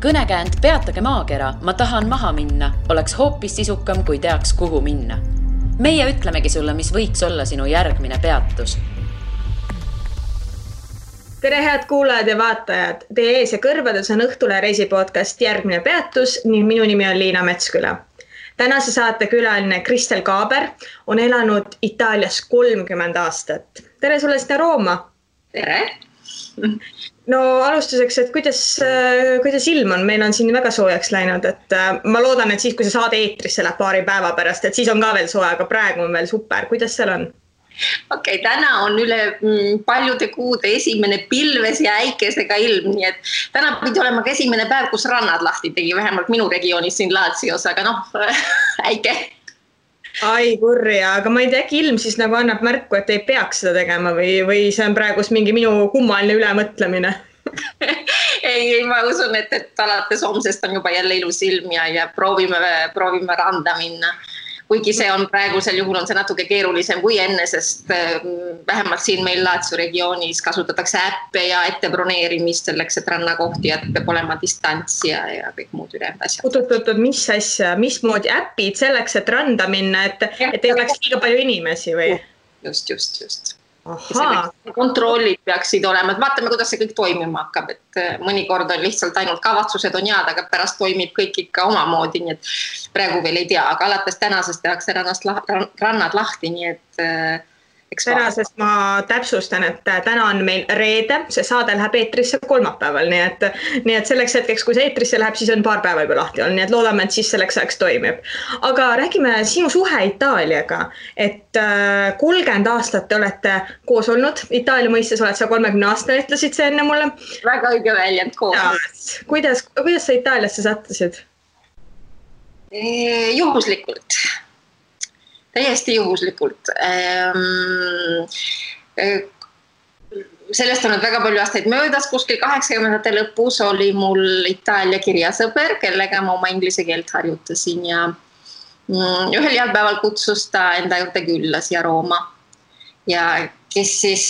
Kõnekäänd Peatage maakera, ma tahan maha minna, oleks hoopis sisukam, kui teaks, kuhu minna. Meie ütlemegi sulle, mis võiks olla sinu järgmine peatus. Tere head kuulajad ja vaatajad. Teie ees ja kõrvades on Õhtule reisipodcast Järgmine peatus ning minu nimi on Liina Metsküla. Tänase saate külaline Kristel Kaaber on elanud Itaalias 30 aastat. Tere sulle sinna Rooma. Tere. No alustuseks, et kuidas ilm on? Meil on siin väga soojaks läinud, et ma loodan, et siis, kui see saade eetrisse läheb paari päeva pärast, et siis on ka veel soe, aga praegu on veel super. Kuidas seal on? Okei, täna on üle paljude kuude esimene pilves ja äikesega ilm, nii et täna pidi olema ka esimene päev, kus rannad lahti tegi, vähemalt minu regioonis siin Laatsios, aga äike. Ai kurja, aga ma ei tea, ilm siis nagu annab märku, et ei peaks seda tegema või see on praegu mingi minu kummaline ülemõtlemine? ei, ma usun, et alates homsest on juba jälle ilus ilm ja proovime randa minna. Kuigi see on praegusel juhul on see natuke keerulisem kui enne, sest vähemalt siin meil Laatsio regioonis kasutatakse äppe ja ettebroneerimist selleks, et rannakohti, et peab olema distants ja kõik muud ülejäänud asjad. Oot, mis asja, mismoodi äpid selleks, et randa minna, et ei oleks liiga palju inimesi või? Just. Aha. Kontrollid peaksid olema, et vaatame, kuidas see kõik toimima hakkab, et mõnikord on lihtsalt ainult kavatsused on head, aga pärast toimib kõik ikka omamoodi, nii et praegu veel ei tea, aga alates tänasest tehakse rannad lahti, nii et tänasest ma täpsustan, et täna on meil reede, see saade läheb eetrisse kolmapäeval, nii et selleks hetkeks, kui see eetrisse läheb, siis on paar päeva juba lahti olnud, nii et loodame, et siis selleks ajaks toimib. Aga räägime sinu suhe Itaaliaga, et 30 aastat te olete koos olnud, Itaalia mõistes oled sa 30 aastane, ütlesid see enne mulle. Väga õige väljend koos. Kuidas sa Itaaliasse sattusid? Juhuslikult. Täiesti juhuslikult. Sellest on väga palju aastaid möödas, kuskil 80-ndate lõpus oli mul Itaalia kirjasõber, kellega ma oma inglise keelt harjutasin ja ühel heal päeval kutsus ta enda juurde külla siia Rooma. Ja kes siis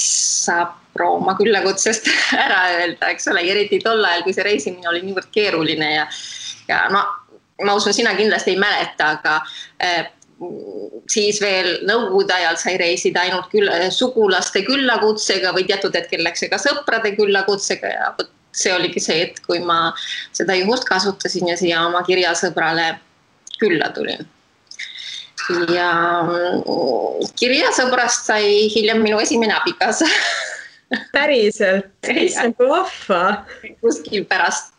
saab Rooma küllakutsest ära öelda, eks ole, eriti tol ajal, kui see reisimine oli niivõrd keeruline ja ma usun, sina kindlasti ei mäleta, aga siis veel nõukogude ajal sai reisida ainult sugulaste küllakutsega või teatud hetkel läks ka sõprade küllakutsega ja see oligi see, et kui ma seda juhust kasutasin ja siia oma kirjasõbrale külla tulin. Ja kirjasõbrast sai hiljem minu esimene abikaasa. Päriselt, see on vahva. Kuskil pärast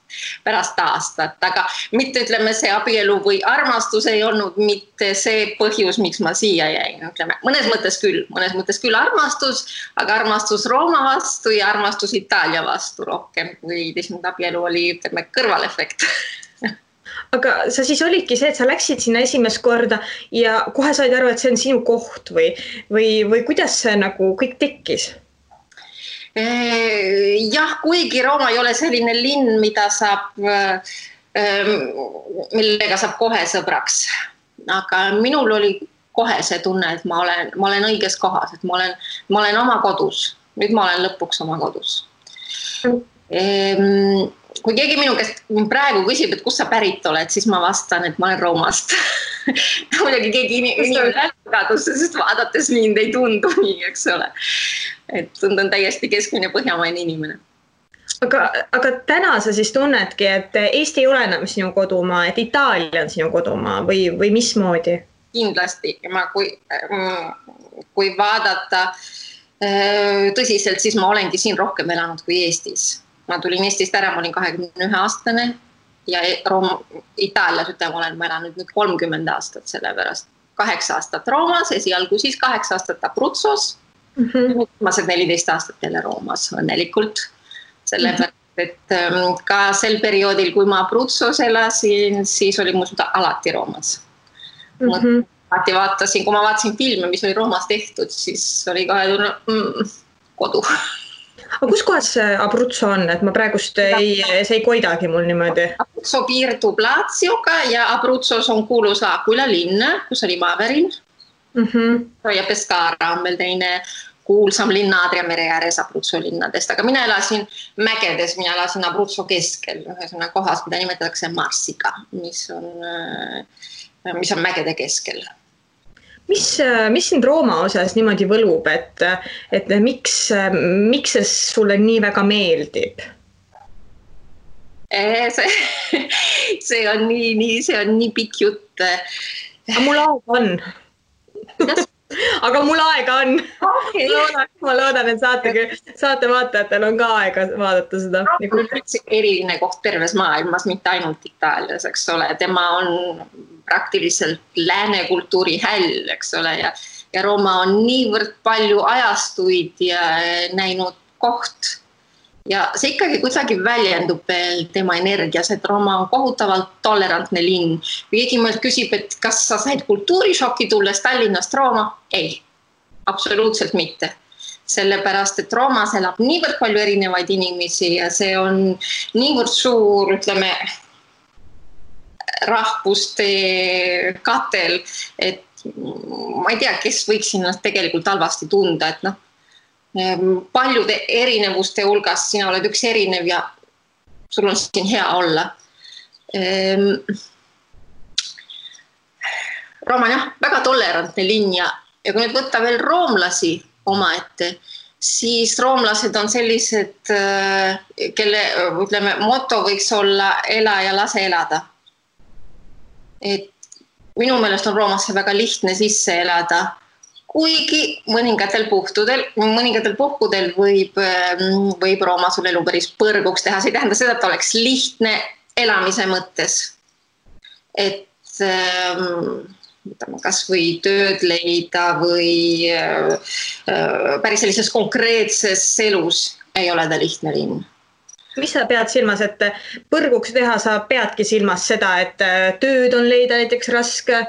aastat, aga mitte ütleme see abielu või armastus ei olnud mitte see põhjus, miks ma siia jäin. Ütleme, mõnes mõttes küll armastus, aga armastus Rooma vastu ja armastus Itaalia vastu rohkem, kui abielu oli, ütleme, kõrvalefekt. Aga sa siis olidki see, et sa läksid sinna esimest korda ja kohe said aru, et see on sinu koht või kuidas see nagu kõik tekkis? Jah, kuigi Rooma ei ole selline linn, millega saab kohe sõbraks. Aga minul oli kohe see tunne, et ma olen õiges kohas, et ma olen oma kodus. Nüüd ma olen lõpuks oma kodus. Kui keegi minu käest praegu küsib, et kus sa pärit oled, siis ma vastan, et ma olen Roomast. Muidugi keegi inimene lähtagadusse, sest vaadates mind ei tundu nii, eks ole. Et tundun täiesti keskmine põhjamaine inimene. Aga täna sa siis tunnedki, et Eesti ei ole enam sinu kodumaa, et Itaalia on sinu kodumaa või mismoodi? Kindlasti. Kui vaadata tõsiselt, siis ma olengi siin rohkem elanud kui Eestis. Ma tulin Eestist ära, ma olin 21 aastane ja Itaalias olen ma elanud nüüd 30 aastat sellepärast. 8 aastat Roomas, esialgu siis 8 aastat Abruzzos. Viimased 14 aastat jälle Roomas õnnelikult. Sellepärast, et ka sel perioodil, kui ma Abruzzos elasin, siis oli mu süda alati Roomas. Kui ma vaatasin filme, mis oli Roomas tehtud, siis oli kohe kodu. Aga kus kohas Abruzzo on, et ma praegust see ei koidagi mul niimoodi? Abruzzo piirdub Laatsioga ja Abruzzos on kuulus L'Aquila linn, kus oli Maaverin. Ja Pescara on meil teine kuulsam linna Adria mere ääres Abruzzo linnadest, aga mina elasin mägedes, mina elasin Abruzzo keskel, ühesõnaga kohas, mida nimetatakse Marsiga, mis on mägede keskel. Mis sind Rooma osas niimoodi võlub, et miks see sulle nii väga meeldib? See on nii pikk jutt. Aga mul aega on. Aga mul aega on. Okay. Ma loodan, et saate vaatajatel on ka aega vaadata seda. Rooma on üldse eriline koht terves maailmas, mitte ainult Itaalias, eks ole. Tema on praktiliselt lääne kultuuri häll, eks ole. Ja Rooma on niivõrd palju ajastuid ja näinud koht. Ja see ikkagi kuidagi väljendub veel tema energias, et Rooma on kohutavalt tolerantne linn. Keegi mõeld küsib, et kas sa said kultuurishoki tulles Tallinnast Rooma? Ei, absoluutselt mitte. Sellepärast, et Roomas elab niivõrd palju erinevaid inimesi ja see on niivõrd suur, ütleme, rahvuste katel, et ma ei tea, kes võiks ennast tegelikult halvasti tunda, et paljude erinevuste hulgas sina oled üks erinev ja sul on siin hea olla. Rooma on väga tolerantne linn ja kui nüüd võtta veel roomlasi omaette, siis roomlased on sellised, kelle moto võiks olla ela ja lase elada. Et minu meelest on Roomasse väga lihtne sisse elada, kuigi mõningatel puhkudel võib Rooma sul elu päris põrguks teha. See ei tähenda seda, et oleks lihtne elamise mõttes. Et kas või tööd leida või päris sellises konkreetses elus ei ole ta lihtne linn. Mis sa pead silmas, et põrguks teha sa peadki silmas seda, et tööd on leida näiteks raske?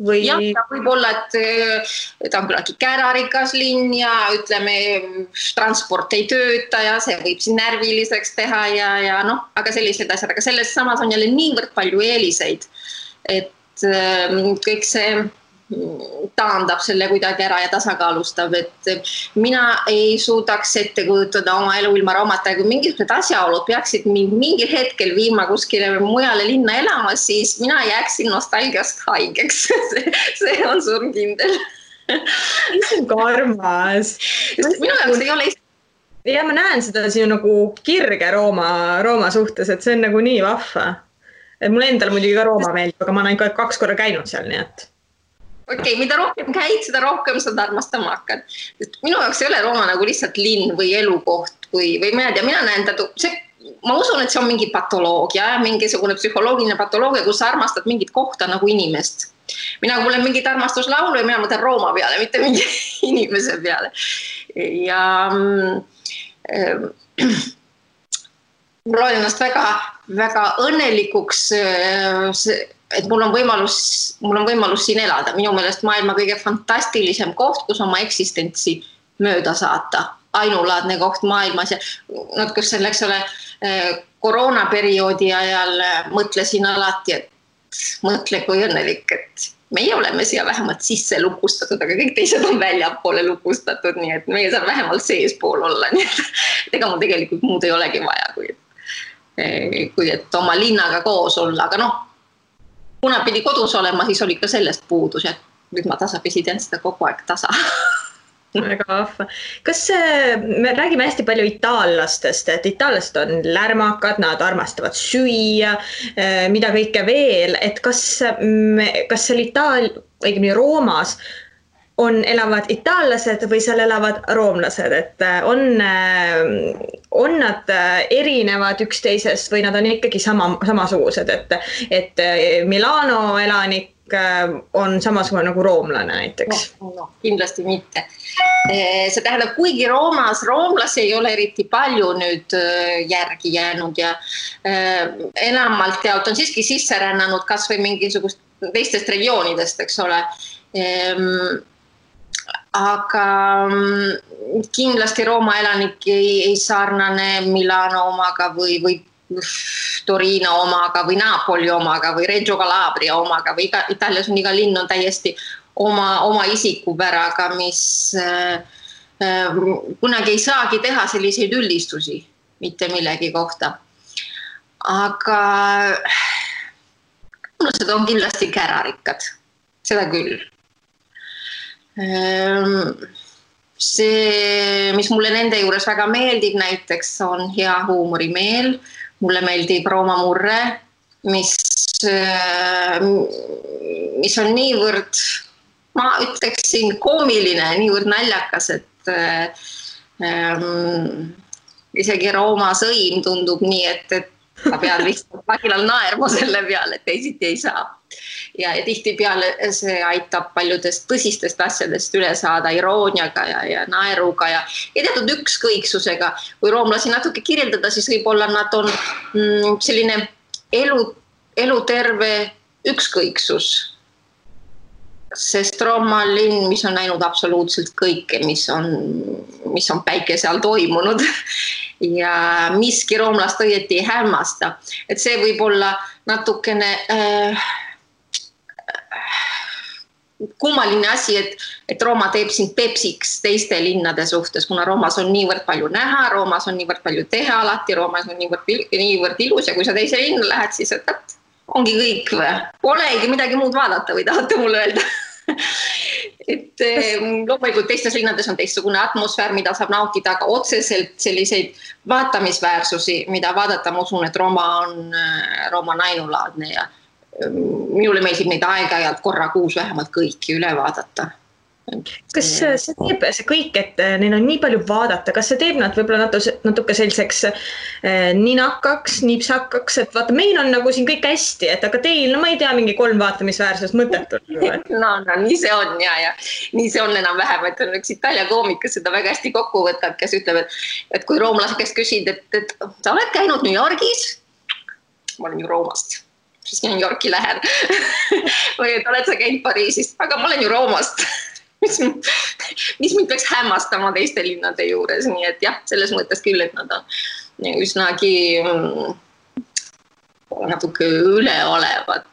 Või... Jah, võib olla, et ta on küllaltki kärarikas linn ja ütleme, transport ei tööta ja see võib siin närviliseks teha ja aga sellised asjad. Aga selles samas on jälle niivõrd palju eeliseid, et kõik see taandab selle kuidagi ära ja tasakaalustab, et mina ei suudaks ette kujutada oma elu ilma Roomata, kui mingisugused asjaolud peaksid mingil hetkel viima kuskile mujale linna elama, siis mina jääksin nostalgiast haigeks. See on surmkindel. See on karmas. Minu jaoks ei ole ja ma näen seda siin nagu kirge Rooma suhtes, et see on nagu nii vahva. Mul endal muidugi ka Rooma meeldib, aga ma olen 2 korda käinud seal, nii et Okei, mida rohkem käid, seda rohkem sa armastama hakkad. Minu jaoks ei ole Rooma nagu lihtsalt linn või elukoht või ma ei tea, mina näen ma usun, et see on mingi patoloogia, mingisugune psühholoogiline patoloogia, kus sa armastad mingit kohta nagu inimest. Mina kui olen mingit armastuslaulu ja mina mõtlen Rooma peale, mitte mingi inimese peale. Ja mul oli ennast väga õnnelikuks, et mul on võimalus siin elada. Minu meelest maailma kõige fantastilisem koht, kus oma eksistentsi mööda saata. Ainulaadne koht maailmas ja kus selleks ole koroonaperioodi ajal mõtlesin alati, et mõtle kui õnnelik, et meie oleme siia vähemalt sisse lukustatud, aga kõik teised on väljapoole lukustatud, nii et meie saab vähemalt seespool olla. Nii et ega mul tegelikult muud ei olegi vaja, kui et oma linnaga koos olla, aga kuna pidi kodus olema, siis oli ka sellest puudus ja nüüd ma tasapisi teen seda kogu aeg tasa. Väga vahva. Me räägime hästi palju itaallastest, et itaallased on lärmakad, nad armastavad süüa, mida kõike veel, et kas seal õigemini Roomas elavad itaallased või seal elavad roomlased, et on nad erinevad üksteisest või nad on ikkagi samasugused, et Milano elanik on samasugune nagu roomlane näiteks? No, kindlasti mitte. See tähendab, kuigi roomlasi ei ole eriti palju nüüd järgi jäänud ja enamalt jaolt on siiski sisse rännanud kas või mingisugust teistest regioonidest, eks ole. Aga kindlasti Rooma elanik ei sarnane Milano omaga või Torino omaga või Napoli omaga või Reggio Calabria omaga või Itaalias on iga linn on täiesti oma isikupäraga, mis kunagi ei saagi teha selliseid üldistusi mitte millegi kohta. Aga rumlased on kindlasti kärarikkad, seda küll. See, mis mulle nende juures väga meeldib näiteks, on hea huumorimeel. Mulle meeldib Rooma Murre, mis on niivõrd, ma ütleksin, koomiline, niivõrd naljakas, et isegi Rooma sõim tundub nii, et sa pead lihtsalt vagilal naerma selle peale, et teisiti ei saa. Ja tihtipeale see aitab paljudest tõsistest asjadest üle saada irooniaga ja naeruga ja teatud ükskõiksusega. Kui roomlasi natuke kirjeldada, siis võib-olla nad on selline eluterve ükskõiksus. Sest Rooma linn, mis on näinud absoluutselt kõike, mis on päikese all toimunud ja miski roomlast õieti ei hämmasta. Et see võib olla natukene kummaline asi, et Rooma teeb sind pepsiks teiste linnade suhtes, kuna Roomas on niivõrd palju näha, Roomas on niivõrd palju teha alati, Roomas on niivõrd ilus ja kui sa teise linna lähed, siis ongi kõik või? Polegi midagi muud vaadata või tahate mulle öelda? Et loomulikult teistes linnades on teistsugune atmosfäär, mida saab nautida, aga otseselt selliseid vaatamisväärsusi, mida vaadata, ma usun, et Rooma on ainulaadne ja minule meeldib neid aeg-ajalt korra kuus vähemalt kõiki üle vaadata. Kas see teeb see kõik, et neil on nii palju vaadata, kas see teeb nad võib-olla natuke selliseks ninakaks, nipsakaks, et vaata, meil on nagu siin kõik hästi, et aga teil, no ma ei tea, mingi 3 vaatamisväärsus mõttetult. No, nii see on ja nii see on enam vähem, et on üks Itaalia koomikas seda väga hästi kokku võtab, kes ütleb, et kui roomlase käest küsid, et sa oled käinud New Yorgis, ma olen ju Roomast. Siis New Yorki lähen. Või et oled sa käinud Pariisist, aga ma olen ju Roomast. Mis mind peaks hämmastama teiste linnade juures. Nii et jah, selles mõttes küll, et nad on üsnagi natuke üleolevad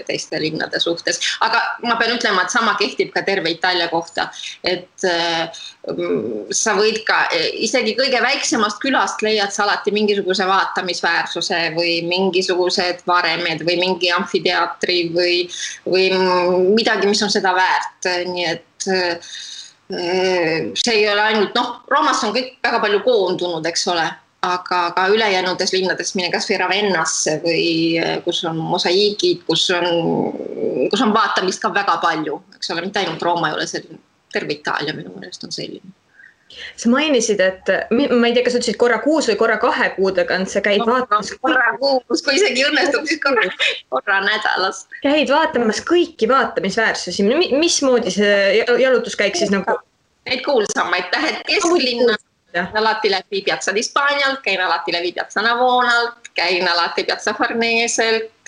teiste linnade suhtes. Aga ma pean ütlema, et sama kehtib ka terve Itaalia kohta. Et sa võid ka isegi kõige väiksemast külast leiad sa alati mingisuguse vaatamisväärsuse või mingisugused varemed või mingi amfiteatri või midagi, mis on seda väärt. Nii et see ei ole ainult, Roomas on kõik väga palju koondunud, eks ole. Aga ka ülejäänudes linnades mine kas või Ravennasse või kus on mosaiigid, kus on vaatamist ka väga palju. Eks ole, mitte ainult Rooma ei ole selline, terve Itaalia minu meelest on selline. Sa mainisid, et ma ei tea, kas ütlesid korra kuus või korra 2 kuudega, sa käid vaatamas. Korra kuus, kui isegi õnnestub, siis korra nädalas. Käid vaatamas kõiki vaatamisväärsusi. Mismoodi see jalutuskäik siis nagu? Neid kuulsamaid, lähed kesklinna. Alati läbi Piazza di Spagnialt, käin alati läbi Piazza Navonalt, käin alati Piazza Farneselt,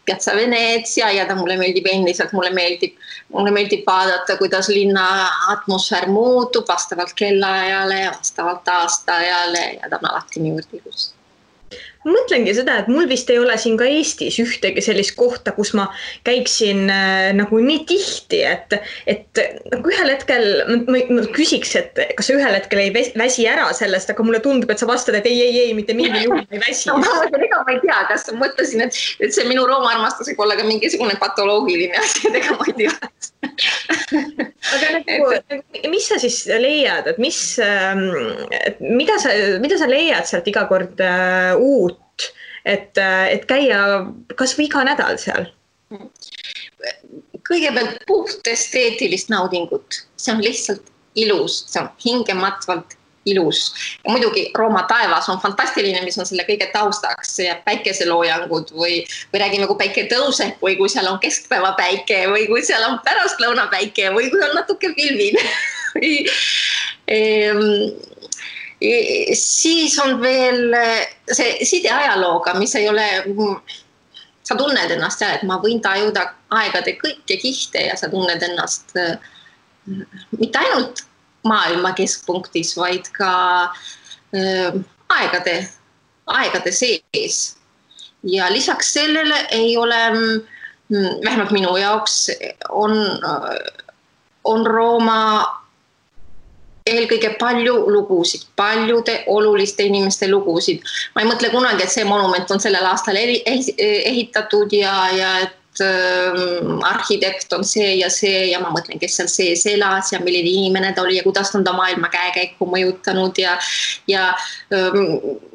Piazza Venezia ja mulle meeldib endiselt, mulle meeldib vaadata, kuidas linna atmosfäär muutub vastavalt kellaajale, vastavalt aastaajale ja ta on alati niivõrd ilus. Ma mõtlengi seda, et mul vist ei ole siin ka Eestis ühtegi sellist kohta, kus ma käiksin nagu nii tihti, et nagu ühel hetkel ma küsiks, et kas sa ühel hetkel ei väsi ära sellest, aga mulle tundub, et sa vastad, et ei, mitte mingi juhul ei väsi. Ma ei tea, kas ma mõtlesin, et see minu Rooma armastus võib olla ka mingisugune patoloogiline asi, ega ma ei tea. Aga mis sa siis leiad, et mida sa leiad sealt iga kord uut, et käia kas või iga nädal seal? Kõigepealt puht esteetilist naudingut. See on lihtsalt ilus, see on hingematvalt ilus. Ja muidugi Rooma taevas on fantastiline, mis on selle kõige taustaks ja päikeseloojangud või räägime, kui päike tõuseb või kui seal on keskpäeva päike või kui seal on pärastlõuna päike või kui on natuke pilvine. Siis on veel see side ajalooga, mis ei ole, sa tunned ennast seal, et ma võin tajuda aegade kõike kihte ja sa tunned ennast mitte ainult maailma keskpunktis, vaid ka aegade sees. Ja lisaks sellele ei ole, vähemalt minu jaoks, on Rooma eelkõige palju lugusid, paljude oluliste inimeste lugusid. Ma ei mõtle kunagi, et see monument on sellel aastal ehitatud ja et arhitekt on see ja ma mõtlen, kes seal sees elas ja milline inimene ta oli ja kuidas on ta maailma käekäiku mõjutanud ja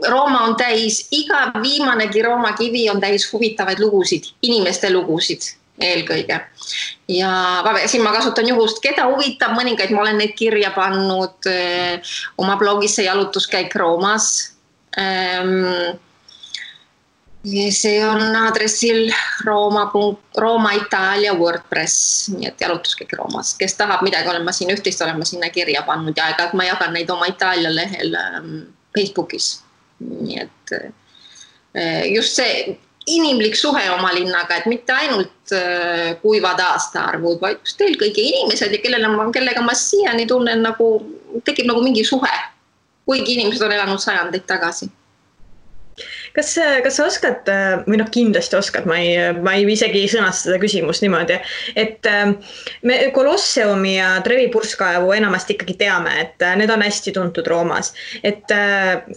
Rooma on täis, iga viimanegi Rooma kivi on täis huvitavaid lugusid, inimeste lugusid eelkõige. Ja siin ma kasutan juhust, keda huvitab mõningaid, ma olen neid kirja pannud oma blogis see jalutuskäik Roomas. See on aadressil Rooma Itaalia WordPress, nii et jalutuskäik Roomas. Kes tahab midagi, olen ma siin ühtist, olen ma sinna kirja pannud ja aeg-ajalt ma jagan neid oma Itaalia lehel Facebookis. Nii et just see inimlik suhe oma linnaga, et mitte ainult kuivad aastaarvud, vaid just eelkõige inimesed ja kellega ma siiani tunnen tekib mingi suhe, kuigi inimesed on elanud sajandeid tagasi. Kas sa oskad, või kindlasti oskad, ma ei isegi sõnasta seda küsimust niimoodi, et me Kolosseumi ja Trevi purskkaevu enamasti ikkagi teame, et need on hästi tuntud Roomas. Et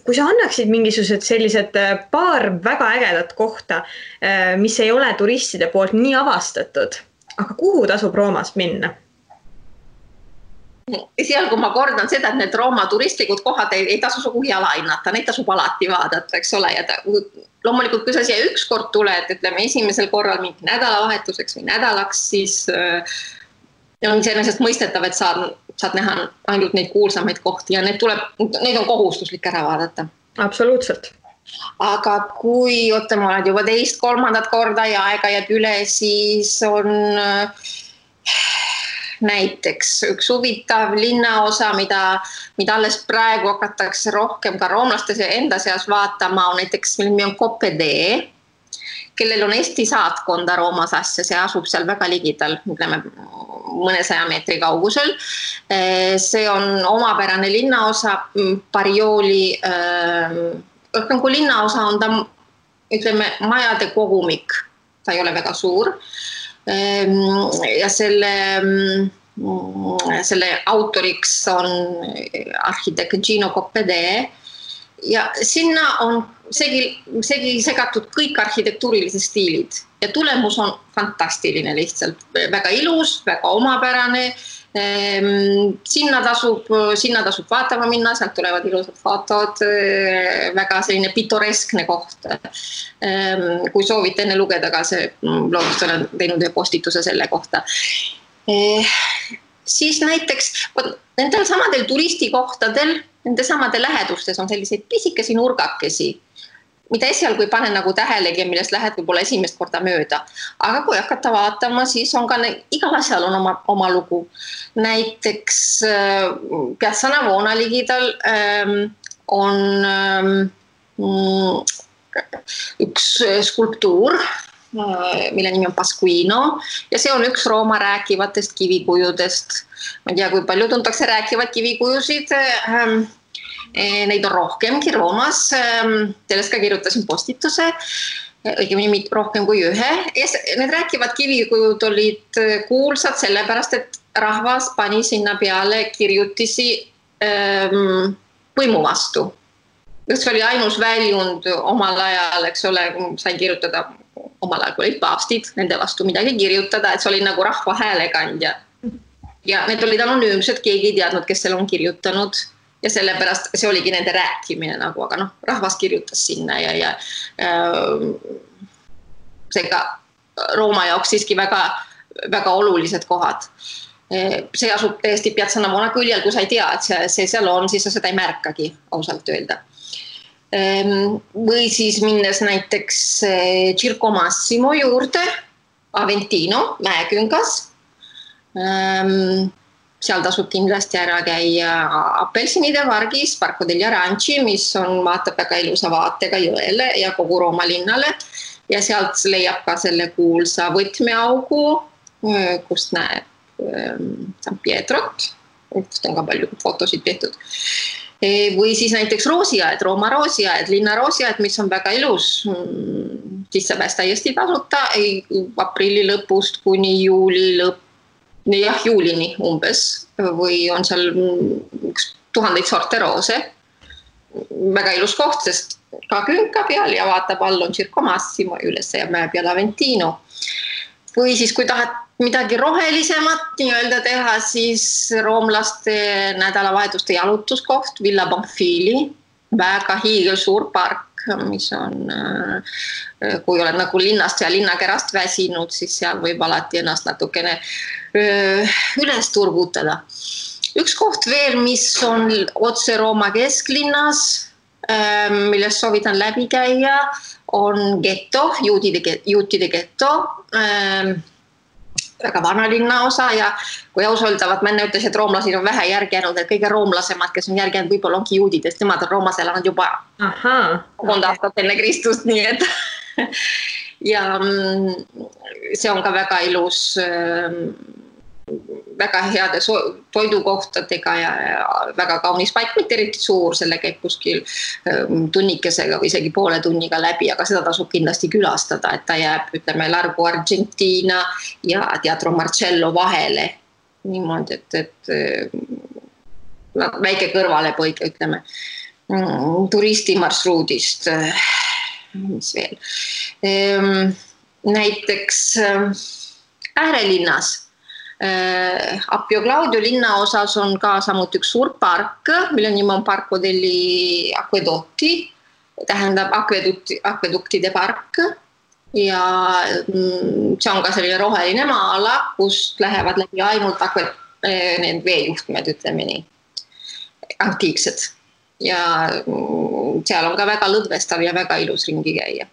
kui sa annaksid mingisugused sellised paar väga ägedat kohta, mis ei ole turistide poolt nii avastatud, aga kuhu tasub Roomas minna? Seal, kui ma kordan seda, et need Rooma turistlikud kohad ei tasu sugugi alahinnata, neid tasub alati vaadata, eks ole. Ja loomulikult, kui sa siia üks kord tuled, ütleme esimesel korral mingi nädalavahetuseks või nädalaks, siis on iseenesest mõistetav, et saad näha ainult neid kuulsamaid kohti ja neid on kohustuslik ära vaadata. Absoluutselt. Aga kui ma olen juba teist, kolmandat korda ja aega jääb üle, siis on näiteks üks huvitav linnaosa, mida alles praegu hakatakse rohkem ka roomlaste enda seas vaatama, on näiteks, mille nimi on Coppedee, kellel on Eesti saatkonda Roomas asja, see asub seal väga ligidal, ütleme mõnesaja meetri kaugusel. See on omapärane linnaosa, Parioli, kui linnaosa on ta, ütleme, majade kogumik, ta ei ole väga suur. Ja selle autoriks on arhitekt Gino Coppedee ja sinna on segi segatud kõik arhitektuurilised stiilid ja tulemus on fantastiline lihtsalt, väga ilus, väga omapärane. Sinna tasub vaatama minna, sealt tulevad ilusad fotod, väga selline pitoreskne koht. Kui soovite enne lugeda ka see blogist, olen teinud ühe postituse selle kohta. Siis näiteks nendel samadel turistikohtadel, nende samade lähedustes on selliseid pisikesi nurgakesi, mida esialgu ei pane tähelegi ja millest lähed võib-olla esimest korda mööda. Aga kui hakata vaatama, siis on ka igal asjal on oma lugu. Näiteks Piazza Navona ligidal on üks skulptuur, mille nimi on Pasquino ja see on üks Rooma rääkivatest kivikujudest. Ma ei tea, kui palju tuntakse rääkivad kivikujusid. Neid on rohkemgi Roomas, sellest ka kirjutasin postituse, õigemini rohkem kui ühe. Need rääkivad kivikujud olid kuulsad sellepärast, et rahvas pani sinna peale kirjutisi võimu vastu. See oli ainus väljund omal ajal, eks ole, sain kirjutada omal ajal, kui olid paavstid, nende vastu midagi kirjutada, et see oli nagu rahva häälekandja. Ja need olid anonüümsed, keegi ei teadnud, kes selle on kirjutanud. Ja sellepärast see oligi nende rääkimine aga rahvas kirjutas sinna ja seega Rooma jaoks siiski väga, väga olulised kohad. See asub täiesti Piazza Navona küljel, kui sa ei tea, et see seal on, siis sa seda ei märkagi, ausalt öelda. Või siis minnes näiteks Circo Massimo juurde, Aventino, mäeküngas. Seal tasub kindlasti ära käia Apelsinide pargis, Parco degli Aranci, mis vaatab väga ilusa vaatega jõele ja kogu Rooma linnale. Ja sealt leiab ka selle kuulsa võtmeaugu, kust näeb San Pietrot, kust on ka palju fotosid tehtud. Või siis näiteks roosiaed, Rooma roosiaed, linna roosiaed, mis on väga ilus. Sisse pääs täiesti tasuta, aprilli lõpust kuni juuli lõpp. jah, juulini umbes või on seal 1000 sorte roose. Väga ilus koht, sest ka künka peal ja vaatab all on Circo Massimo, üles ja mäe peal Aventino. Või siis, kui tahad midagi rohelisemat nii-öelda teha, siis roomlaste nädalavahetuste jalutuskoht Villa Bonfili, väga hiigelsuur park, mis on, kui oled nagu linnast ja linnakerast väsinud, siis seal võib alati ennast natukene üles turgutada. Üks koht veel, mis on otse Rooma kesklinnas, millest soovitan läbi käia, on getto, juutide getto, väga vana linnaosa ja kui ausaldavad, ma enne ütles, et roomlased on vähe järgjäänud, et kõige roomlasemad, kes on järgjäänud, võib-olla ongi juudidest, nemad on Roomas elanud juba 1000 aastat enne Kristust, nii et ja see on ka väga ilus, väga heade toidukohtadega ja väga kaunis paik, mitte eriti suur, selle käib kuskil tunnikesega või isegi poole tunniga läbi, aga seda tasub kindlasti külastada, et ta jääb, ütleme, Largo Argentina ja Teatro Marcello vahele. Niimoodi, et väike kõrvalepõige, ütleme, turistimarsruudist, mis veel. Näiteks äärelinnas Appio Claudio linnaosas on ka samuti üks suur park, mille nimi on Parco degli Acquedotti, tähendab akveduktide park ja see on ka selline roheline maa-ala, kust lähevad läbi ainult need veejuhtmed, ütleme nii, antiiksed ja seal on ka väga lõdvestav ja väga ilus ringi käia.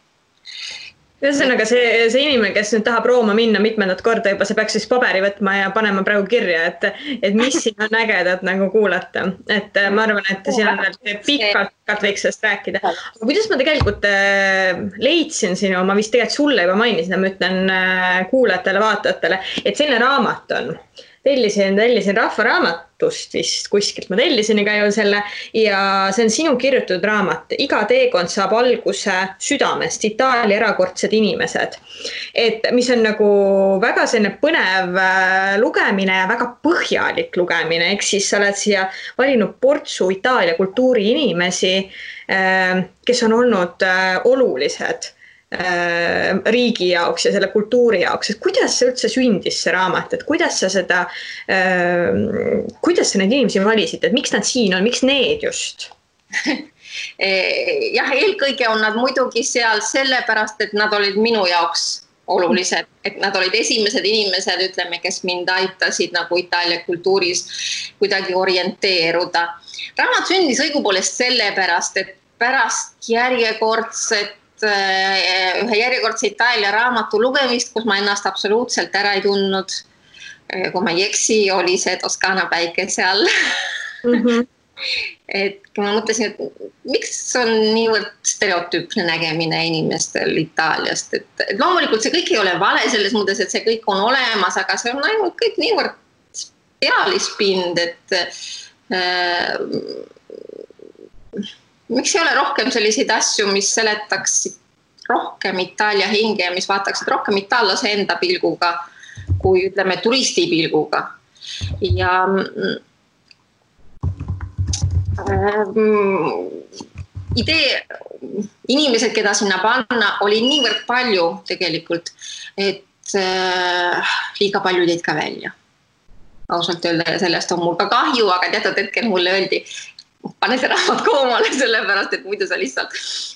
Ühesõnaga see inimene, kes nüüd tahab Rooma minna mitmendat korda juba, see peaks siis paberi võtma ja panema praegu kirja, et mis siin on ägedat nagu kuulata. Et ma arvan, et siin on pikalt võiks sellest rääkida. Aga kuidas ma tegelikult leidsin sinu, ma vist tegelikult sulle juba mainisin, ma ütlen kuulajatele, vaatajatele, et selline raamat on. Tellisin rahvaraamatust vist kuskilt, ma tellisin iga ju selle ja see on sinu kirjutatud raamat. Iga teekond saab alguse südamest, Itaalia erakordsed inimesed. Et mis on nagu väga selline põnev lugemine ja väga põhjalik lugemine. Eks siis sa oled siia valinud portsu Itaalia kultuuri inimesi, kes on olnud olulised riigi jaoks ja selle kultuuri jaoks, et kuidas see üldse sündis see raamat, et kuidas sa neid inimesi valisid, et miks nad siin on, miks need just? Jah, eelkõige on nad muidugi seal sellepärast, et nad olid minu jaoks olulised, et nad olid esimesed inimesed, ütleme, kes mind aitasid nagu Itaalia kultuuris kuidagi orienteeruda. Raamat sündis õigupoolest sellepärast, et pärast ühe järjekordse Itaalia raamatu lugemist, kus ma ennast absoluutselt ära ei tundnud, kui ma ei eksi, oli see Toskaana päikese all. Et ma mõtlesin, et miks on niivõrd stereotüüpne nägemine inimestel Itaaliast, et loomulikult see kõik ei ole vale selles mõttes, et see kõik on olemas, aga see on ainult kõik niivõrd pealispind, et miks ei ole rohkem selliseid asju, mis seletaksid rohkem Itaalia hinge ja mis vaataksid rohkem itaallase enda pilguga, kui ütleme turisti pilguga. Ja idee, inimesed, keda sinna panna, oli niivõrd palju tegelikult, et liiga palju jäid ka välja. Ausalt öelda ja sellest on mul ka kahju, aga teatud hetkel mulle öeldi, pane see raamat koomale, sellepärast, et muidu sa lihtsalt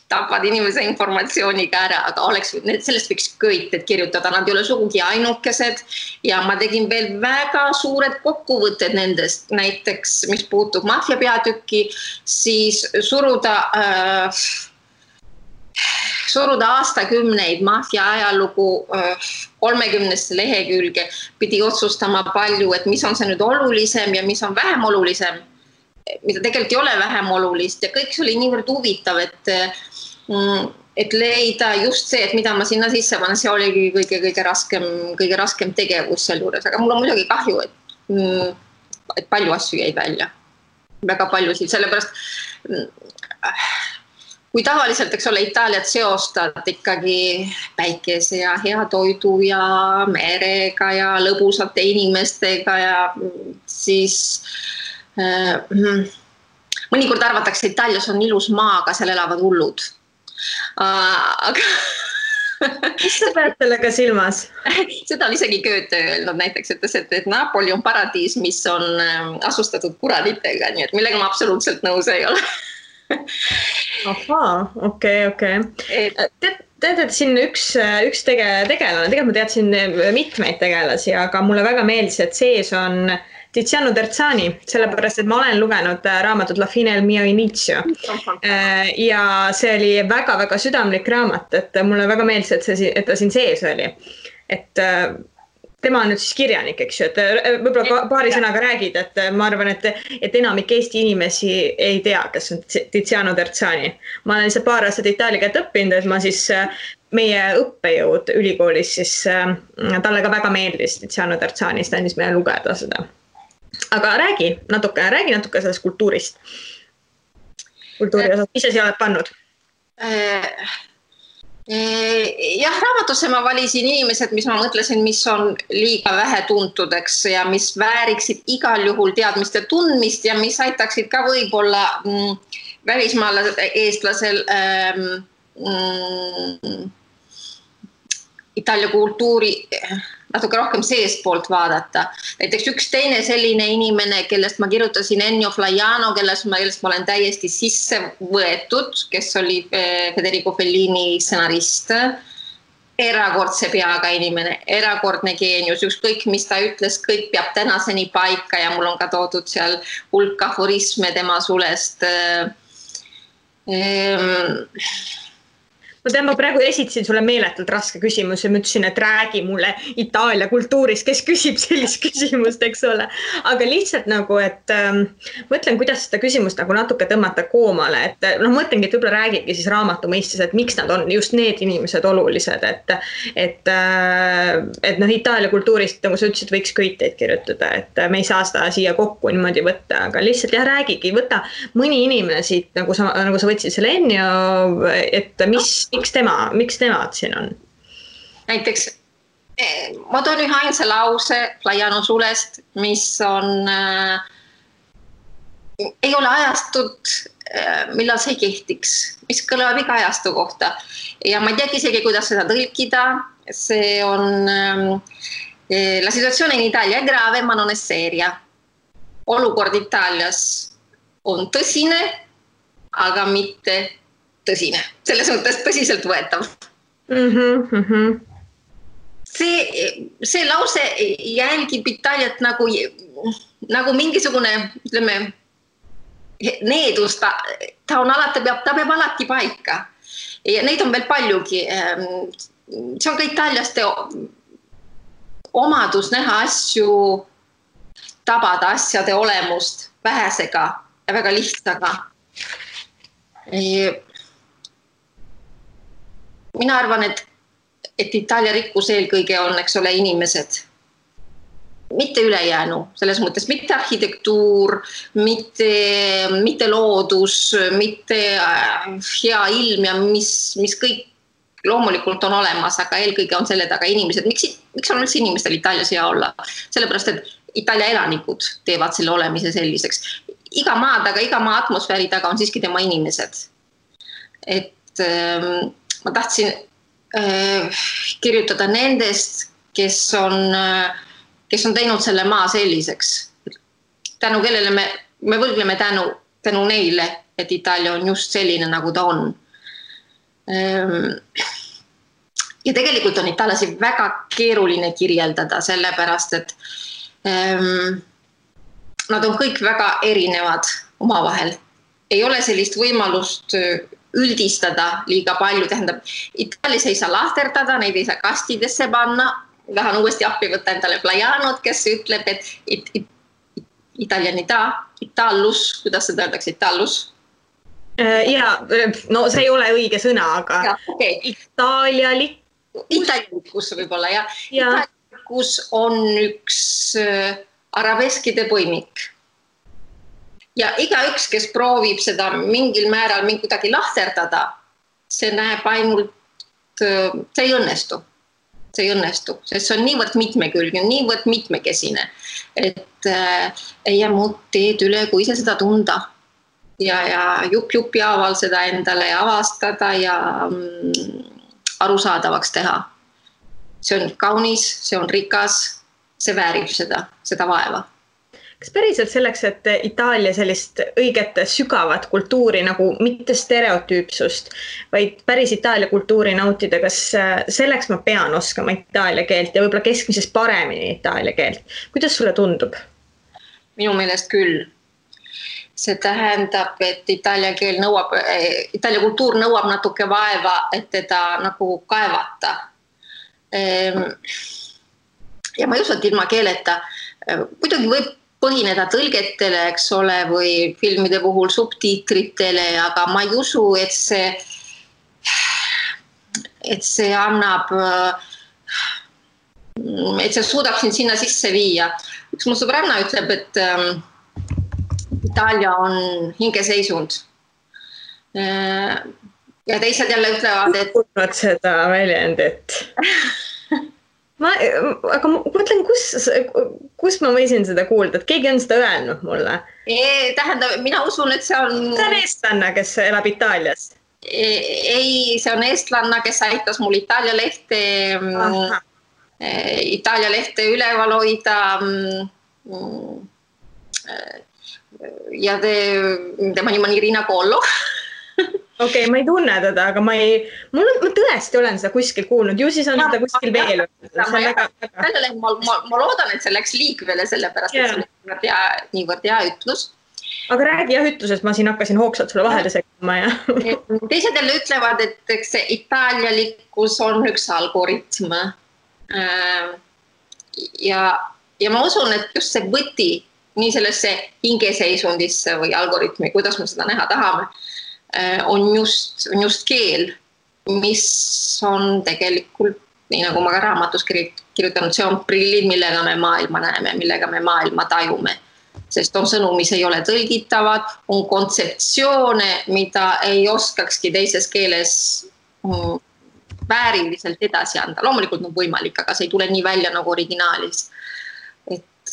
tapad inimese informatsiooniga ära, aga sellest võiks kõik kirjutada, nad ei ole sugugi ainukesed ja ma tegin veel väga suured kokkuvõtted nendest, näiteks mis puutub maffia peatükki, siis suruda aastakümneid maffia ajalugu 30 lehekülge, pidi otsustama palju, et mis on see nüüd olulisem ja mis on vähem olulisem, mida tegelikult ei ole vähem olulist ja kõik see oli niivõrd huvitav, et leida just see, et mida ma sinna sisse panen, see oligi kõige raskem tegevus seal juures, aga mul on muidugi kahju, et palju asju jäid välja, väga paljusid, sellepärast kui tavaliselt, eks ole, Itaaliat seostad ikkagi päikese ja hea toidu ja merega ja lõbusate inimestega ja siis mõnikord arvatakse, Itaalias on ilus maa, aga seal elavad hullud. Aga mis sa pead sellega silmas? Seda on isegi Goethe öelnud, näiteks ütles, et Napoli on paradiis, mis on asustatud kuraditega, nii et millega ma absoluutselt nõus ei ole. Ahaa, okei. Tead, et siin üks tegelane, tegelikult ma teadsin mitmeid tegelasi, aga mulle väga meeldis, et sees on Tiziano Terzani, sellepärast, et ma olen lugenud raamatut La fine del mio inizio ja see oli väga-väga südamlik raamat, et mulle väga meeldis, et ta siin sees oli. Et tema on nüüd siis kirjanik, eks ju, et võib-olla paari sõnaga räägid, et ma arvan, et enamik Eesti inimesi ei tea, kes on Tiziano Terzani. Ma olen lihtsalt paar aastat itaalia keelt õppinud, et ma siis meie õppejõud ülikoolis, siis talle ka väga meeldis Tiziano Terzani, siis ta andis meile lugeda seda. Aga räägi natuke sellest kultuurist. Kultuuri osas, mis sa siia oled pannud? Jah, raamatusse ma valisin inimesed, mis ma mõtlesin, mis on liiga vähe tuntudeks ja mis vääriksid igal juhul teadmiste tundmist ja mis aitaksid ka võib-olla välismaal eestlasel Itaalia kultuuri natuke rohkem seestpoolt vaadata. Näiteks üks teine selline inimene, kellest ma kirjutasin Ennio Flaiano, kellest ma olen täiesti sisse võetud, kes oli Federico Fellini stsenarist. Erakordse peaga inimene, erakordne geenius, ükskõik mis ta ütles, kõik peab tänaseni paika ja mul on ka toodud seal hulk aforisme tema sulest. Ma tean, ma praegu esitasin sulle meeletult raske küsimus ja ma ütlesin, et räägi mulle Itaalia kultuurist, kes küsib sellist küsimust, eks ole. Aga lihtsalt nagu, et mõtlen, kuidas seda küsimust nagu natuke tõmmata koomale, et mõtlengi, et võib-olla räägigi siis raamatu mõistes, et miks nad on just need inimesed olulised, et Itaalia kultuurist, nagu sa ütlesid, võiks köiteid kirjutada, et me ei saa seda siia kokku niimoodi võtta, aga lihtsalt jah, räägigi, võta mõni inimene siit, nagu sa võtsid selle Ennio, et miks temad siin on? Näiteks, ma toon ühe ainsa lause Flaiano sulest, mis on, ei ole ajastut, millal see kehtiks, mis kõlab iga ajastu kohta. Ja ma ei teagi isegi, kuidas seda tõlkida. See on, la situazione in Italia è grave, ma non è seria. Olukord Itaalias on tõsine, aga mitte tõsine, selles mõttes tõsiselt võetav. See lause jälgib Itaaliat nagu mingisugune, ütleme, needus, ta peab alati paika. Ja neid on veel paljugi. See on ka italiaste omadus näha asju, tabada asjade olemust vähesega ja väga lihtsaga. Mina arvan, et Itaalia rikkus eelkõige on, eks ole, inimesed. Mitte ülejäänu, selles mõttes mitte arhitektuur, mitte loodus, mitte hea ilm ja mis kõik loomulikult on olemas, aga eelkõige on selle taga inimesed. Miks on üldse inimestel Itaalias hea olla? Sellepärast, et Itaalia elanikud teevad selle olemise selliseks. Iga maa taga, iga maa atmosfääri taga on siiski tema inimesed. Et ma tahtsin kirjutada nendest, kes on teinud selle maa selliseks. Tänu kellele me võlgleme tänu neile, et Itaalia on just selline, nagu ta on. Ja tegelikult on itaallasi väga keeruline kirjeldada, sellepärast, et nad on kõik väga erinevad omavahel. Ei ole sellist võimalust üldistada liiga palju, tähendab, Itaalias ei saa lahterdada, neid ei saa kastidesse panna, tahan uuesti appi võtta endale Flaianot, kes ütleb, et italianita, itallus, kuidas seda öeldakse, itallus? Ja, no see ei ole õige sõna, aga ja, okay. Itaalialikkus võib-olla, ja. Itaalialikkus on üks arabeskide põimik. ja igaüks, kes proovib seda mingil määral kuidagi lahterdada, see näeb ainult, see ei õnnestu. See ei õnnestu, sest see on niivõrd mitmekülgne, niivõrd mitmekesine, et ei jää muud teed üle, kui ise seda tunda ja jupi haaval seda endale avastada ja arusaadavaks teha. See on kaunis, see on rikas, see väärib seda vaeva. Kas päriselt selleks, et Itaalia sellist õiget sügavat kultuuri nagu mitte stereotüüpsust, vaid päris Itaalia kultuuri nautida, kas selleks ma pean oskama Itaalia keelt ja võib-olla keskmisest paremini Itaalia keelt? Kuidas sulle tundub? Minu meelest küll. See tähendab, et Itaalia kultuur nõuab natuke vaeva, et teda nagu kaevata. Ja ma ei usu, et ilma keeleta. Muidugi võib põhineda tõlgetele, eks ole, või filmide puhul subtiitritele, aga ma ei usu, et see annab, et see suudab sinna sisse viia. Üks mu sõbranna ütleb, et Itaalia on hingeseisund. Ja teised jälle ütlevad, et... Kuulnud seda väljendit. Aga ma mõtlen, kus ma võisin seda kuulda, et keegi on seda öelnud mulle? Tähendab, mina usun, et see on... See on eestlanna, kes elab Itaalias? Ei, see on eestlanna, kes aitas mul Itaalia lehte üleval hoida ja tema nimi on Irina Kollo. Okei, ma ei tunne teda, aga ma tõesti olen seda kuskil kuulnud. Ju siis on seda kuskil veel. Ma loodan, et see läks liikvele sellepärast, et see on niivõrd hea ütlus. Aga räägi jah ütlusest, ma siin hakkasin hoogsalt sulle vahele segama. Teised jälle ütlevad, et see itaalialikkus on üks algoritm. Ja ma usun, et just see võti nii sellesse hingeseisundisse või algoritmi, kuidas me seda näha tahame, on just keel, mis on tegelikult, nii nagu ma ka raamatus kirjutanud, see on prillid, millega me maailma näeme, millega me maailma tajume. Sest on sõnu, mis ei ole tõlgitavad, on kontseptsioone, mida ei oskakski teises keeles vääriliselt edasi anda. Loomulikult on võimalik, aga see ei tule nii välja nagu originaalis. Et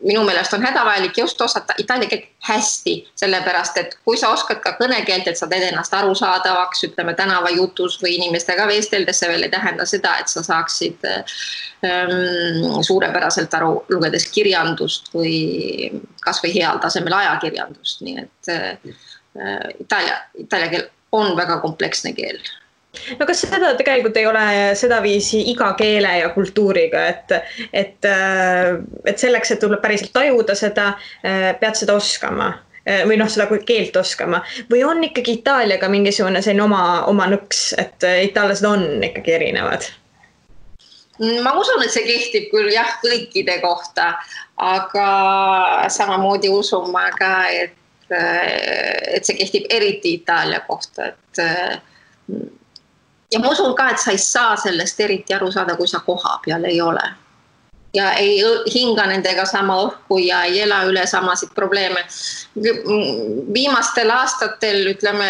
minu meelest on hädavajalik just osata itaalia keelt hästi, sellepärast, et kui sa oskad ka kõnekeelt, et sa teed ennast arusaadavaks, ütleme tänavajutus või inimestega vesteldes, see veel ei tähenda seda, et sa saaksid suurepäraselt aru lugedes kirjandust või kas või heal tasemel ajakirjandust. Nii et itaalia keel on väga kompleksne keel. No kas seda tegelikult ei ole seda viisi iga keele ja kultuuriga, et selleks, et tuleb päriselt tajuda seda, pead seda oskama või seda keelt oskama või on ikkagi Itaaliaga mingisugune selline oma nõks, et itaallased on ikkagi erinevad? Ma usun, et see kehtib küll jah kõikide kohta, aga samamoodi usun ma ka, et see kehtib eriti Itaalia kohta, ja ma usun ka, et sa ei saa sellest eriti aru saada, kui sa koha peal ei ole. Ja ei hinga nendega sama õhku ja ei ela üle samasid probleeme. Viimastel aastatel, ütleme,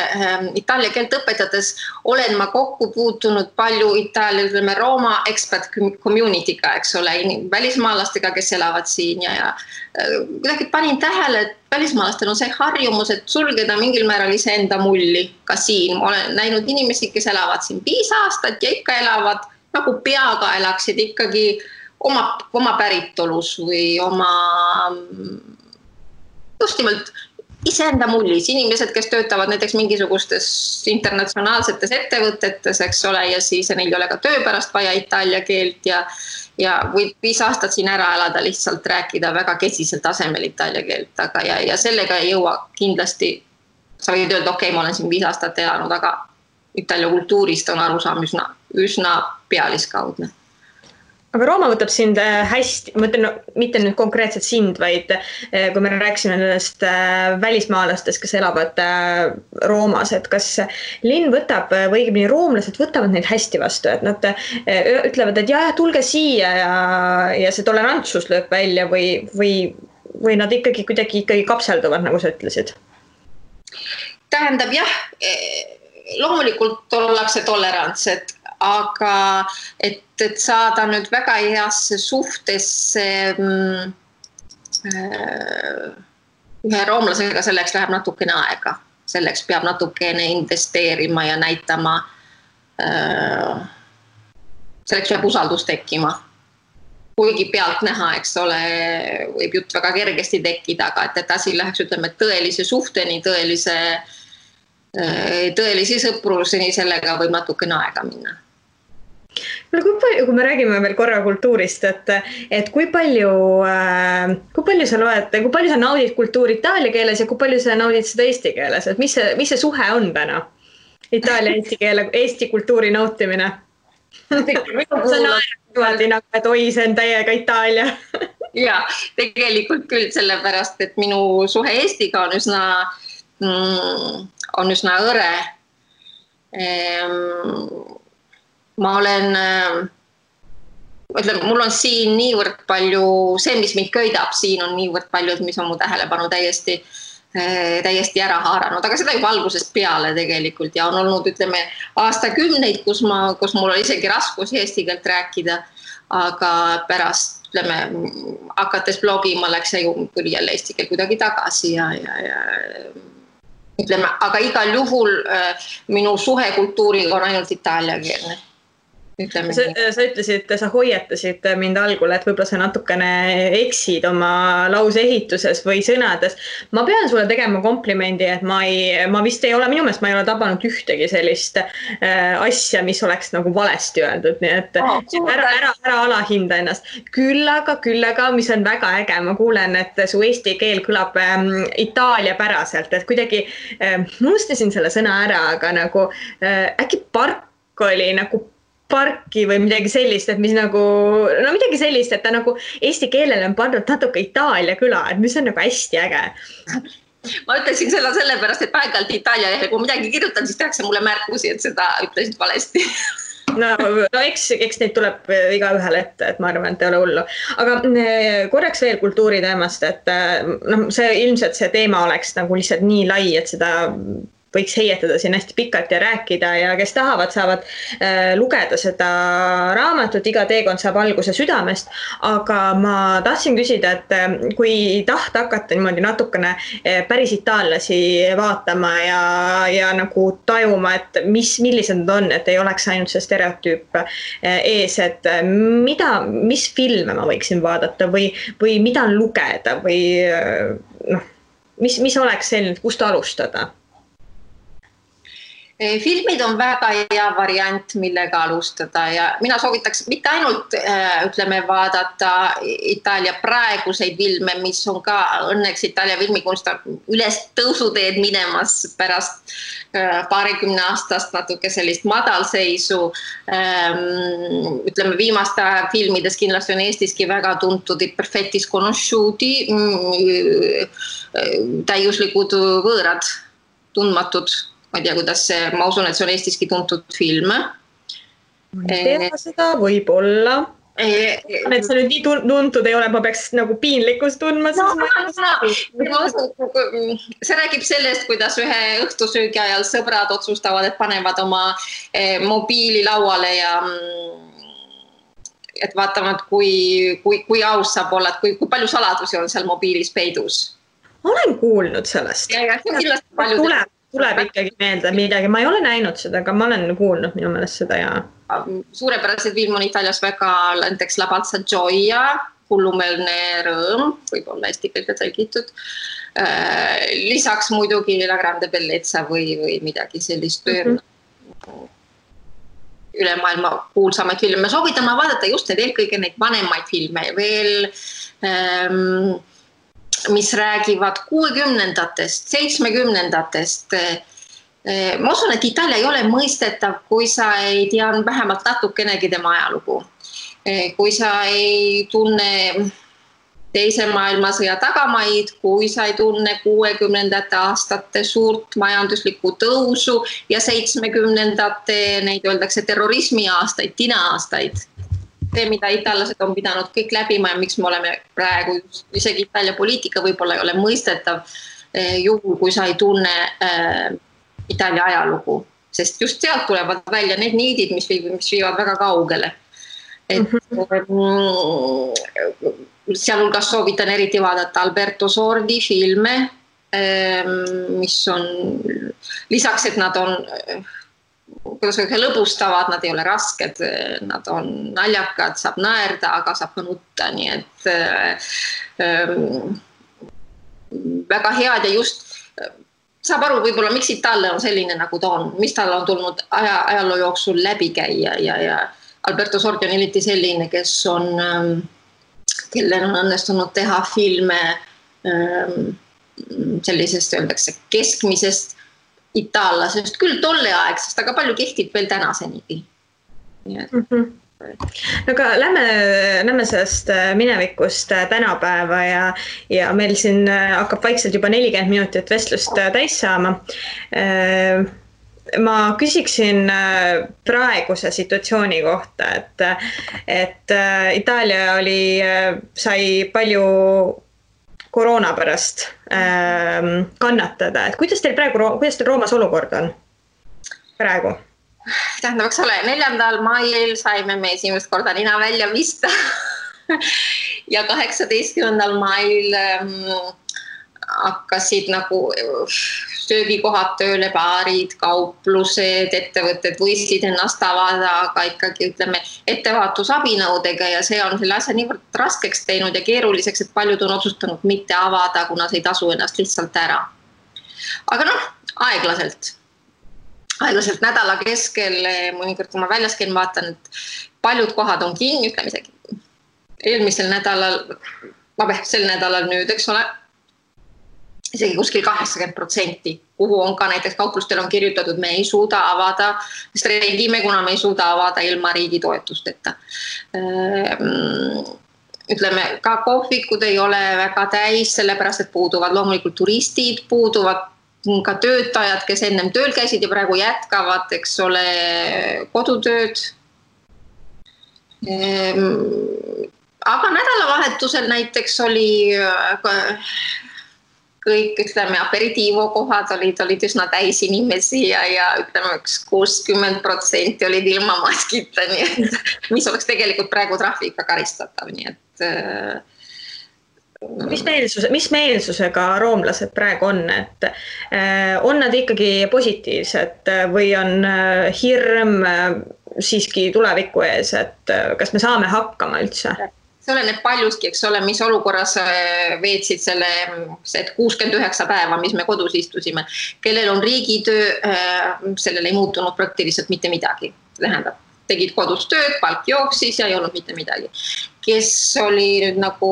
itaalia keelt õpetades olen ma kokku puutunud palju Itaalia, ütleme, Rooma expert community'ga, eks ole, välismaalastega, kes elavad siin ja kuidagi panin tähele, et välismaalastel on see harjumus, et sulgeda mingil määral iseenda mulli ka siin. Ma olen näinud inimesi, kes elavad siin 5 aastat ja ikka elavad nagu peaga elaksid ikkagi oma päritolus või just nimelt iseenda mullis. Inimesed, kes töötavad näiteks mingisugustes internatsionaalsetes ettevõtetes, eks ole, ja siis neil ei ole ka töö pärast vaja itaalia keelt ja võib 5 aastat siin ära elada, lihtsalt rääkida väga kesisel tasemel itaalia keelt, aga ja sellega ei jõua kindlasti, sa võid öelda, okei, ma olen siin 5 aastat elanud, aga itaalia kultuurist on arusaam üsna pealiskaudne. Aga Rooma võtab sind hästi, ma ütlen, mitte nüüd konkreetselt sind, vaid kui me rääksime nendest välismaalastest, kes elavad Roomas, et kas linn võtab või õigemini roomlased võtavad neid hästi vastu, et nad ütlevad, et jah, tulge siia ja see tolerantsus lööb välja või või nad ikkagi kuidagi kapselduvad, nagu sa ütlesid? Tähendab jah, loomulikult ollakse tolerantsed, aga et saada nüüd väga heasse suhtesse ühe roomlasega, selleks läheb natukene aega. Selleks peab natukene investeerima ja näitama, selleks peab usaldus tekkima. Kuigi pealt näha, eks ole, võib jutt väga kergesti tekkida, aga et asi läheks, ütleme, tõelise suhteni, tõelisi sõpruseni, sellega võib natukene aega minna. Kui me räägime veel korra kultuurist, et kui palju sa loed, kui palju sa naudid kultuuri itaalia keeles ja kui palju sa naudid seda eesti keeles, et mis see suhe on täna? Itaalia eesti keele, eesti kultuuri nautimine. Sa naerad nagu, et oi, see on täiega Itaalia. Ja, tegelikult küll sellepärast, et minu suhe Eestiga on üsna õre. Ma olen, ütleme, mul on siin niivõrd palju, see, mis mind köidab, siin on niivõrd palju, mis on mu tähelepanu täiesti ära haaranud, aga seda juba algusest peale tegelikult ja on olnud, ütleme, aastakümneid, kus mul oli isegi raskus eesti keelt rääkida, aga pärast, ütleme, hakates blogima läks ja tuli jälle eesti keel kuidagi tagasi ja ütleme, aga igal juhul minu suhe kultuuriga on ainult itaaliakeelne. Sa ütlesid, sa hoiatasid mind algul, et võib-olla sa natukene eksid oma lause ehituses või sõnades. Ma pean sulle tegema komplimendi, et ma vist ei ole, minu meelest ma ei ole tabanud ühtegi sellist asja, mis oleks nagu valesti öeldud, nii et ära alahinda ennast. Küll aga, mis on väga äge, ma kuulen, et su eesti keel kõlab Itaalia päraselt, et kuidagi unustasin selle sõna ära, aga nagu äkki park oli nagu parki või midagi sellist, et mis nagu, no midagi sellist, et ta nagu eesti keelele on pandud natuke Itaalia küla, et mis on nagu hästi äge. Ma ütlesin seda sellepärast, et paigalt Itaalia lehel, kui midagi kirjutan, siis tehakse mulle märkusi, et seda ütlesid valesti. No eks neid tuleb iga ühele ette, et ma arvan, et ei ole hullu. Aga korraks veel kultuuri teemast, et ilmselt see teema oleks nagu lihtsalt nii lai, et seda võiks heietada siin hästi pikalt ja rääkida ja kes tahavad, saavad lugeda seda raamatut, iga teekond saab alguse südamest, aga ma tahtsin küsida, et kui tahta hakata niimoodi natukene päris itaallasi vaatama ja nagu tajuma, et millised nad on, et ei oleks ainult see stereotüüp ees, et mis filme ma võiksin vaadata või mida lugeda või mis oleks selline, kust alustada? Filmid on väga hea variant, millega alustada ja mina soovitaks mitte ainult, ütleme, vaadata Itaalia praeguseid filme, mis on ka õnneks Itaalia filmikunst üles tõusuteed minemas pärast paarikümne aastast natuke sellist madalseisu. Ütleme, viimaste filmides kindlasti on Eestiski väga tuntud Perfetti sconosciuti, täiuslikud võõrad, tundmatud. Ma ei tea, kuidas see, ma usun, et see on Eestiski tuntud film. Ma ei tea seda, võib olla. Et see nüüd nii tuntud ei ole, ma peaks nagu piinlikkust tundma. See räägib sellest, kuidas ühe õhtusöögi ajal sõbrad otsustavad, et panevad oma mobiili lauale ja et vaatavad, kui aus saab olla, et kui palju saladusi on seal mobiilis peidus. Olen kuulnud sellest. Ja see on kindlasti palju tuleb ikkagi meelde midagi, ma ei ole näinud seda, aga ma olen kuulnud minu meelest seda ja suurepärased film on Itaalias väga näiteks La Balsa Gioia, hullumeelne rõõm, võib olla eesti keelde tõlgitud. Lisaks muidugi La Grande Bellezza või midagi sellist üle maailma kuulsamaid filme. Soovitame vaadata just eelkõige neid vanemaid filme veel mis räägivad 60-ndatest, 70-ndatest. Ma usun, et Itaalia ei ole mõistetav, kui sa ei tea vähemalt natukenegi tema ajalugu. Kui sa ei tunne teise maailmasõja tagamaid, kui sa ei tunne 60-ndate aastate suurt majanduslikku tõusu ja 70-ndate, neid öeldakse terrorismi aastaid, tina aastaid. see, mida itaallased on pidanud kõik läbima ja miks me oleme praegu, isegi Itaalia poliitika võib-olla ei ole mõistetav juhul, kui sa ei tunne Itaalia ajalugu, sest just sealt tulevad välja need niidid, mis viivad väga kaugele. Sealhulgas soovitan eriti vaadata Alberto Sordi filme, mis on lisaks, et nad on lõbustavad, nad ei ole rasked, nad on naljakad, saab naerda, aga saab ka nutta, nii et väga head ja just saab aru võib-olla, miks Itaalia on selline, nagu ta on, mis tal on tulnud ajaloo jooksul läbi käia ja Alberto Sordi on eriti selline, kellel on õnnestunud teha filme sellisest, öeldakse, keskmisest itaallasest, küll tolleaegsest, aga palju kehtib veel tänasenigi. Aga lähme sellest minevikust tänapäeva ja meil siin hakkab vaikselt juba 40 minutit vestlust täis saama. Ma küsiksin praeguse situatsiooni kohta, et Itaalia sai palju koroona pärast kannatada, et kuidas teil Roomas olukord on praegu? Tähendab, eks ole, 4. mail saime me esimest korda nina välja vista ja 18. mail hakkasid nagu söögikohad tööle, baarid, kauplused, ettevõtted võisid ennast avada, aga ikkagi ütleme ettevaatusabinõudega ja see on selle asja niivõrd raskeks teinud ja keeruliseks, et paljud on otsustanud mitte avada, kuna see ei tasu ennast lihtsalt ära. Aga aeglaselt nädala keskel, mõnikord kui ma väljas käin, vaatan, et paljud kohad on kinni, ütleme isegi eelmisel nädalal, sel nädalal nüüd, eks ole, isegi kuskil 80%, kuhu on ka näiteks kauplustel on kirjutatud, me ei suuda avada, streigime, kuna me ei suuda avada ilma riigi toetusteta. Ütleme, ka kohvikud ei ole väga täis, sellepärast, et puuduvad loomulikult turistid, puuduvad ka töötajad, kes ennem tööl käisid ja praegu jätkavad, eks ole, kodutööd. Aga nädalavahetusel näiteks oli kõik, ütleme, aperitiivokohad olid üsna täis inimesi ja ütleme, 60% olid ilma maskita, nii et mis oleks tegelikult praegu trahviga karistatav, nii et Mis meelsusega roomlased praegu on, et on nad ikkagi positiivsed või on hirm siiski tuleviku ees, et kas me saame hakkama üldse? See oleneb paljuski, eks ole, mis olukorras veetsid selle 69 päeva, mis me kodus istusime. Kellel on riigitöö, sellel ei muutunud praktiliselt mitte midagi. Tähendab, tegid kodus tööd, palk jooksis ja ei olnud mitte midagi. Kes oli nüüd nagu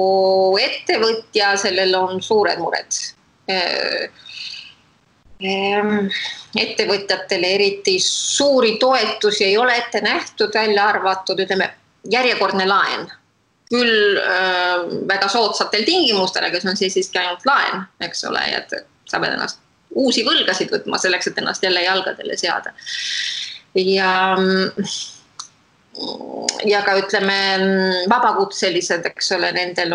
ettevõtja, sellel on suured mured. Ettevõtjatele eriti suuri toetusi ei ole ette nähtud, välja arvatud, ütleme, järjekordne laen. Küll väga soodsatel tingimustel, aga see on siiski ainult laen, eks ole, et sa pead ennast uusi võlgasid võtma selleks, et ennast jälle jalgadele seada. Ja ka ütleme vabakutselised, eks ole, nendel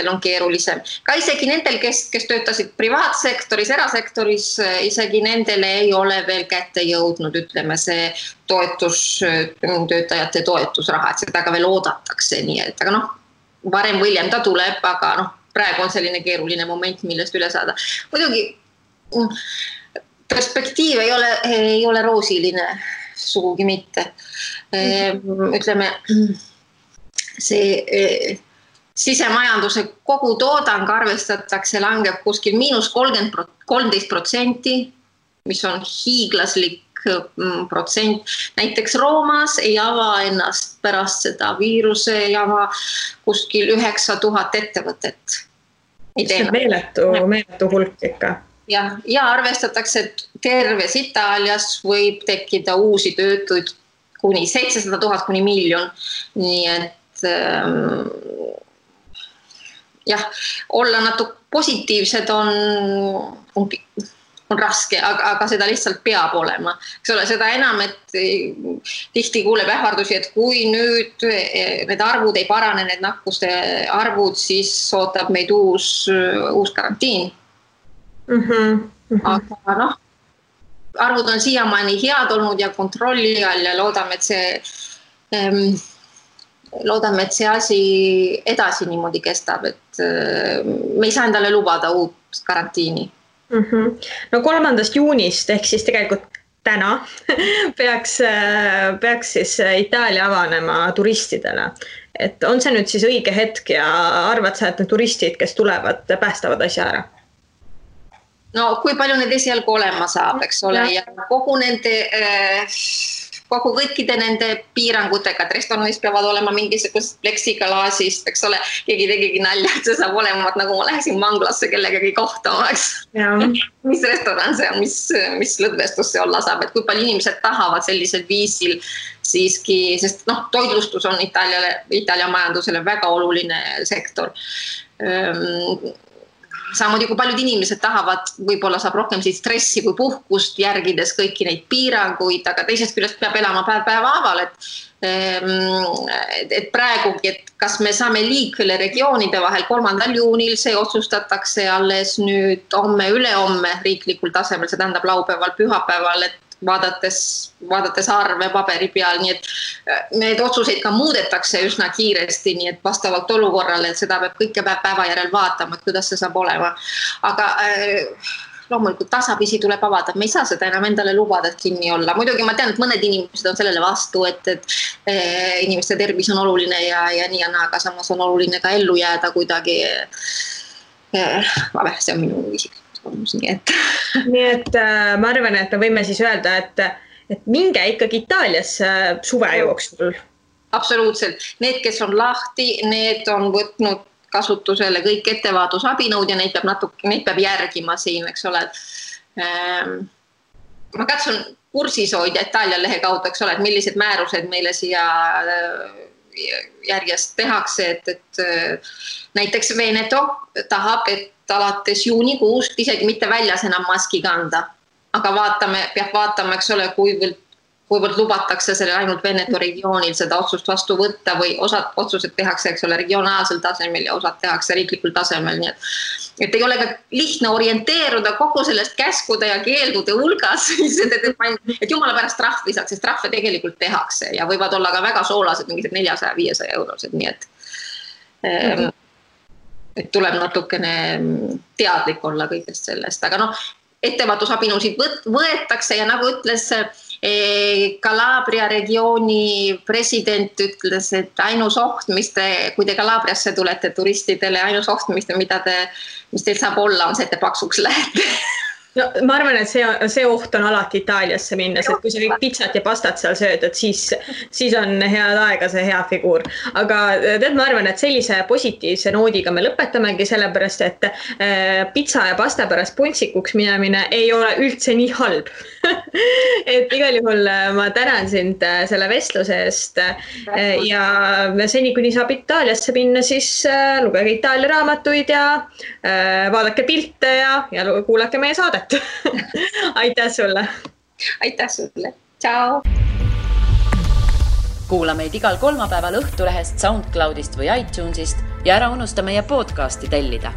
on keerulisem. Ka isegi nendel, kes töötasid privaatsektoris, erasektoris, isegi nendele ei ole veel kätte jõudnud, ütleme, see töötajate toetusraha, et seda ka veel oodatakse, nii et, aga varem või hiljem ta tuleb, aga praegu on selline keeruline moment, millest üle saada. Muidugi perspektiiv ei ole roosiline, sugugi mitte. Ütleme, see sisemajanduse kogu toodang arvestatakse langeb kuskil -13%, mis on hiiglaslik protsent. Näiteks Roomas ei ava ennast pärast seda viiruse jama kuskil 9000 ettevõtet. See on meeletu hulk ikka. Ja arvestatakse, et terves Itaalias võib tekkida uusi töötuid kuni 700 000 kuni miljon. Nii et olla natuke positiivsed on raske, aga seda lihtsalt peab olema. Eks ole, seda enam, et tihti kuuleb ähvardusi, et kui nüüd need arvud ei parane, need nakkuste arvud, siis ootab meid uus karantiin. Aga noh, arvud on siiamaani head olnud ja kontrolli all ja loodame, et see asi edasi niimoodi kestab, et me ei saa endale lubada uut karantiini. No 3. juunist ehk siis tegelikult täna peaks siis Itaalia avanema turistidele. Et on see nüüd siis õige hetk ja arvad sa, et need turistid, kes tulevad, päästavad asja ära? No kui palju need esialgu olema saab, eks ole, ja kogu kõikide nende piirangutega, et restoranis peavad olema mingisugust pleksiklaasist, eks ole, keegi tegigi nalja, et see saab olema, nagu ma läheksin manglasse kellegagi kohtama, eks. Mis restoran see on, mis lõdvestus see olla saab, et kui palju inimesed tahavad sellisel viisil siiski, sest toitlustus on Itaalia majandusele väga oluline sektor. Samamoodi kui paljud inimesed tahavad, võib-olla saab rohkem stressi kui puhkust järgides kõiki neid piiranguid, aga teisest küljest peab elama päeva-päeval, et praegugi, et kas me saame liikvele regioonide vahel 3. juunil, see otsustatakse alles nüüd ülehomme riiklikul tasemel, see tähendab laupäeval, pühapäeval, et vaadates arve paberi peal, nii et need otsuseid ka muudetakse üsna kiiresti, nii et vastavalt olukorrale, et seda peab kõike päeva järel vaatama, et kuidas see saab olema. Aga loomulikult tasapisi tuleb avada, me ei saa seda enam endale lubada, et kinni olla. Muidugi ma tean, et mõned inimesed on sellele vastu, et inimeste tervis on oluline ja nii ja naa, aga samas on oluline ka ellu jääda kuidagi. See on minu isiklik. Nii et ma arvan, et me võime siis öelda, et minge ikkagi Itaaliasse suve jooksul. Absoluutselt. Need, kes on lahti, need on võtnud kasutusele kõik ettevaadusabinõud ja neid peab järgima siin, eks ole. Ma katsun kursis hoida Itaalia lehe kaudu, eks ole, et millised määrused meile siia järjest tehakse, et näiteks Veneto tahab, et alates juunikuust isegi mitte väljas enam maski kanda, aga peab vaatama, eks ole, kuivõrd lubatakse selle ainult Veneto regioonil seda otsust vastu võtta või osad otsused tehakse, eks ole, regionaalsel tasemel ja osad tehakse riiklikul tasemel, nii et ei ole ka lihtne orienteeruda kogu sellest käskude ja keeldude hulgas, et jumala pärast trahvi saaks, sest trahve tegelikult tehakse ja võivad olla ka väga soolased, mingised 400-500 eurosed, nii et tuleb natukene teadlik olla kõigest sellest, aga ettevaadusabinõusid võetakse ja nagu ütles Calabria regiooni president ütles, et ainus oht, kui te Calabriasse tulete turistidele, ainus oht, mis teil saab olla, on see, et te paksuks lähete. No, ma arvan, et see oht on alati Itaaliasse minnes, et kui sa kõik pitsat ja pastat seal sööd, et siis on head aega see hea figuur. Aga ma arvan, et sellise positiivse noodiga me lõpetamegi sellepärast, et pitsa ja pasta pärast puntsikuks minemine ei ole üldse nii halb. Et igal juhul ma tänan sind selle vestluse eest ja seni, kuni saab Itaaliasse minna, siis lugege Itaalia raamatuid ja vaadake pilte ja kuulake meie saadet. Aitäh sulle! Aitäh sulle! Ciao! Kuula meid igal kolmapäeval Õhtulehest, SoundCloudist või iTunesist ja ära unusta meie podcasti tellida.